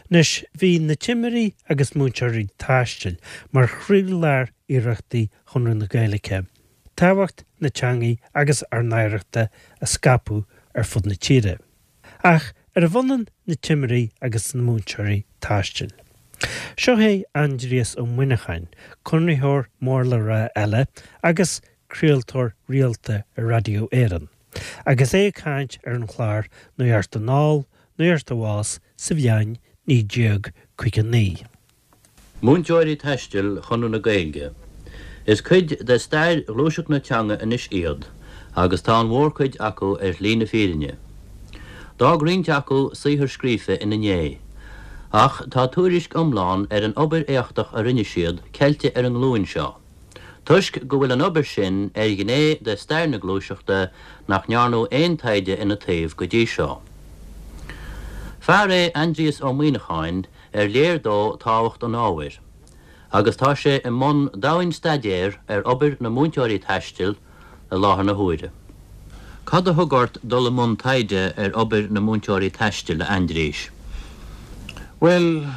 Anois, bhí na timirí agus múinteoirí taistil mar chroílár iarrachtaí Chonradh na Gaeilge tábhacht na teangaidh agus ár n-oidhreachta a scaipeadh ar fud na tíre. Ach arbh ionann na timirí agus na múinteoirí taistil? Seo é Aindrias Ó Muineacháin, Conraitheoir mór le rá eile agus craoltóir rialta ar Raidió Éireann, agus é ag caint ar an chlár Nuacht Anall, Nuacht Abhus sa bhliain 1959. Múinteoirí taistil Chonradh na Gaeilge. Is cuid de stair ghluaiseacht na teanga anois iad agus tá an mhórchuid acu ar shlí na fírinne. D'fhág roinnt acu saothar scríofa ina ndiaidh, ach tá tuairisc iomlán ar an obair éachtach a rinne siad ceilte ar an nglúin seo, toisc go bhfuil an obair sin ar ghné de stair na gluaiseachta nach ndearnadh aon taighde ina taobh go dtí seo. Fear é Aindrias Ó Muíneacháin ar léir dó tábhacht an ábhair, agus tá sé i mbun domhain-staidéir ar obair na múinteoirí taistil i láthair na huaire. Cad a thug ort dul i mbun taighde ar obair na múinteoirí taistil, a Aindriais? Bhuel,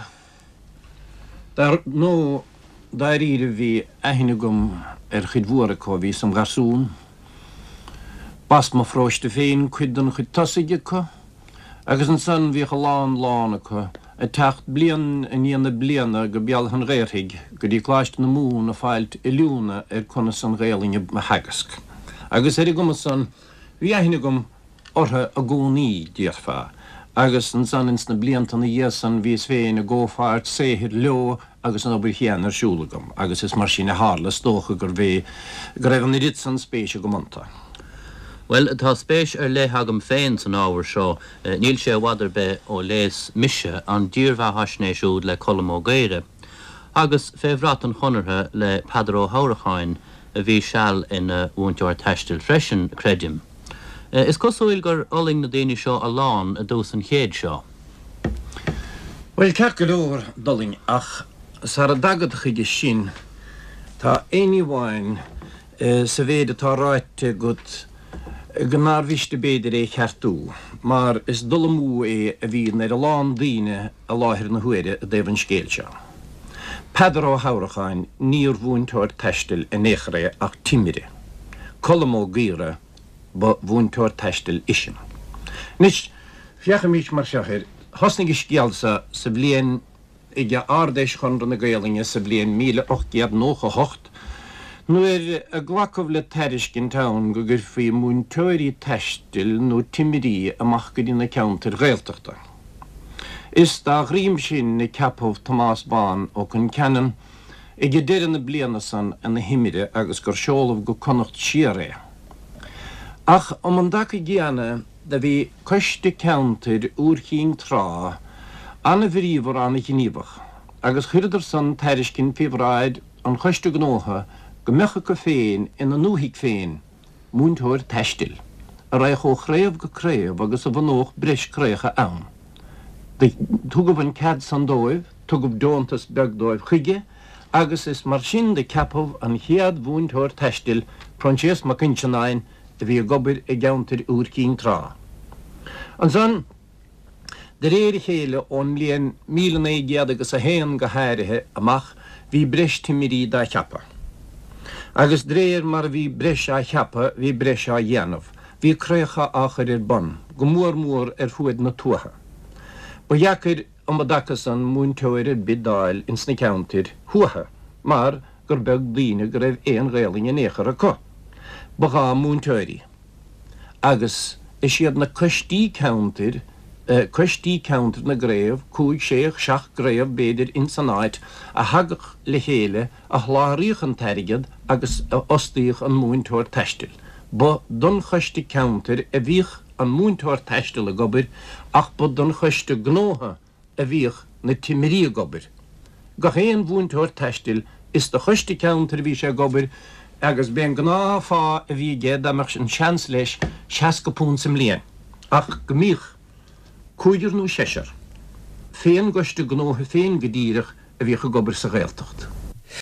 dar ndóigh, dáiríre bhí aithne agam ar chuid mhór acu ó bhíos im gharsún. B'as mo pharóiste féin cuid den chuid tosaigh acu. Agus ansan bhíodh a lán lán acu ag teacht bliain i ndiaidh na bliana go Béal Átha'n Ghaorthaidh go dtí Coláiste na Mumhan ag fáilt oiliúna ar conas an Ghaelainn a theagasc. Agus ar an gcuma san bhí aithne agam orthu i gcónaí, déarfá. Agus ansan ins na blianta ina dhiaidh san bhíos féin i gcomhpháirt saothair leo agus an obair chéanna ar siúl agam agus is mar sin a tharla, is dócha gurbh é go raibh an oiread san spéis agam iontu. Bhuel, tá spéis ar leith agam féin san ábhar seo. Níl sé i bhfad ar bith ó léas mise an dírbheathaisnéis úd le Colm Ó Gaora, agus Fé Bhrat an Chonartha le Peadar Ó hAmhracháin, a bhí seal ina mhúinteoir taistil freisin, creidim. Is cosúil gur fhulaing na daoine seo a lán i dtús an chéid seo. Bhuel, ceart go leor, d'fhulaing, ach sara dtagad chuige sin, tá aon ní amháin sa mhéid atá ráite agat go nár mhiste b'fhéidir é cheartú, mar is dul amú é a bhíonn ar a lán daoine i láthair na huaire i dtaobh an scéil seo. Peadar Ó hAmhracháin, níor mhúinteoir taistil in aon chor é ach timire. Colm Ó Gaora, ba mhúinteoir taistil eisean. Anois, féachaimis mar seo air, thosnaigh an scéal seo sa bhliain, ag Ard-Fheis Chonradh na Gaolainne sa bhliain 1898, nuair a glacadh le tairiscint ann go gcuirfí múinteoirí taistil nó timirí amach go dtí na ceantair Ghaeltachta. Is dá dhroim sin a ceapadh Tomás Bán Ó Concheanainn ag deireadh na bliana san ina thimire agus gur seoladh go Connacht siar é. Ach um an dtaca gcéanna do bhí Coiste Ceantair Iúr Chinn Trá ana-bhríomhar ana-ghníomhach agus chuireadar san tairiscint faoi bhráid an Choiste Gnótha go mbeadh acu féin ina ndúthaigh féin múinteoir taistil, a raghadh ó chraobh go craobh agus a bhunódh breis craobhacha ann. Do tugadh an cead san dóibh, tugadh deontas beag dóibh chuige agus is mar sin do ceapadh an chéad mhúinteoir taistil, Proinsias Mac Uinseannáin, a bhí ag obair i gceantar Iúr Cinn Trá. Ansan, De réir a chéile, ón mbliain 1900 agus a haon go háirithe amach, bhí breis timirí dá cheapadh. Agus d'réir mar a bhí breis á cheapadh, bhí breis á dhéanamh. Bhí craobhacha á chur ar bun, go mór mór ar fuaid na tuaithe. Ba dheacair um an dtaca san múinteoir ar bith d'fháil ins na ceantair thuaithe, mar gur beag daoine go raibh aon Ghaelainn in aon chor acu. Ba ghá múinteoirí. Agus is iad na coistí ceantair, coistí ceantair na gcraobh, cúig, sé, seacht gcraobh b'fhéidir ins an áit, a thagadh le chéile, a sholáthraíodh an t-airgead agus a fhostaíodh an múinteoir taistil. Ba don choiste ceantair a bhíodh an múinteoir taistil ag obair ach ba don choiste gnótha a bhíodh na timirí ag obair. Gach aon mhúinteoir taistil, is do choiste ceantair a bhí sé ag obair agus b'é an gnáth-phá a bhí aige, dá mbeadh an seans leis, £60 sa mbliain. Ach go mbíodh cúigear nó seisear, fén gcoiste gnótha féin go díreach, a bhíodh ag obair sa Ghaeltacht.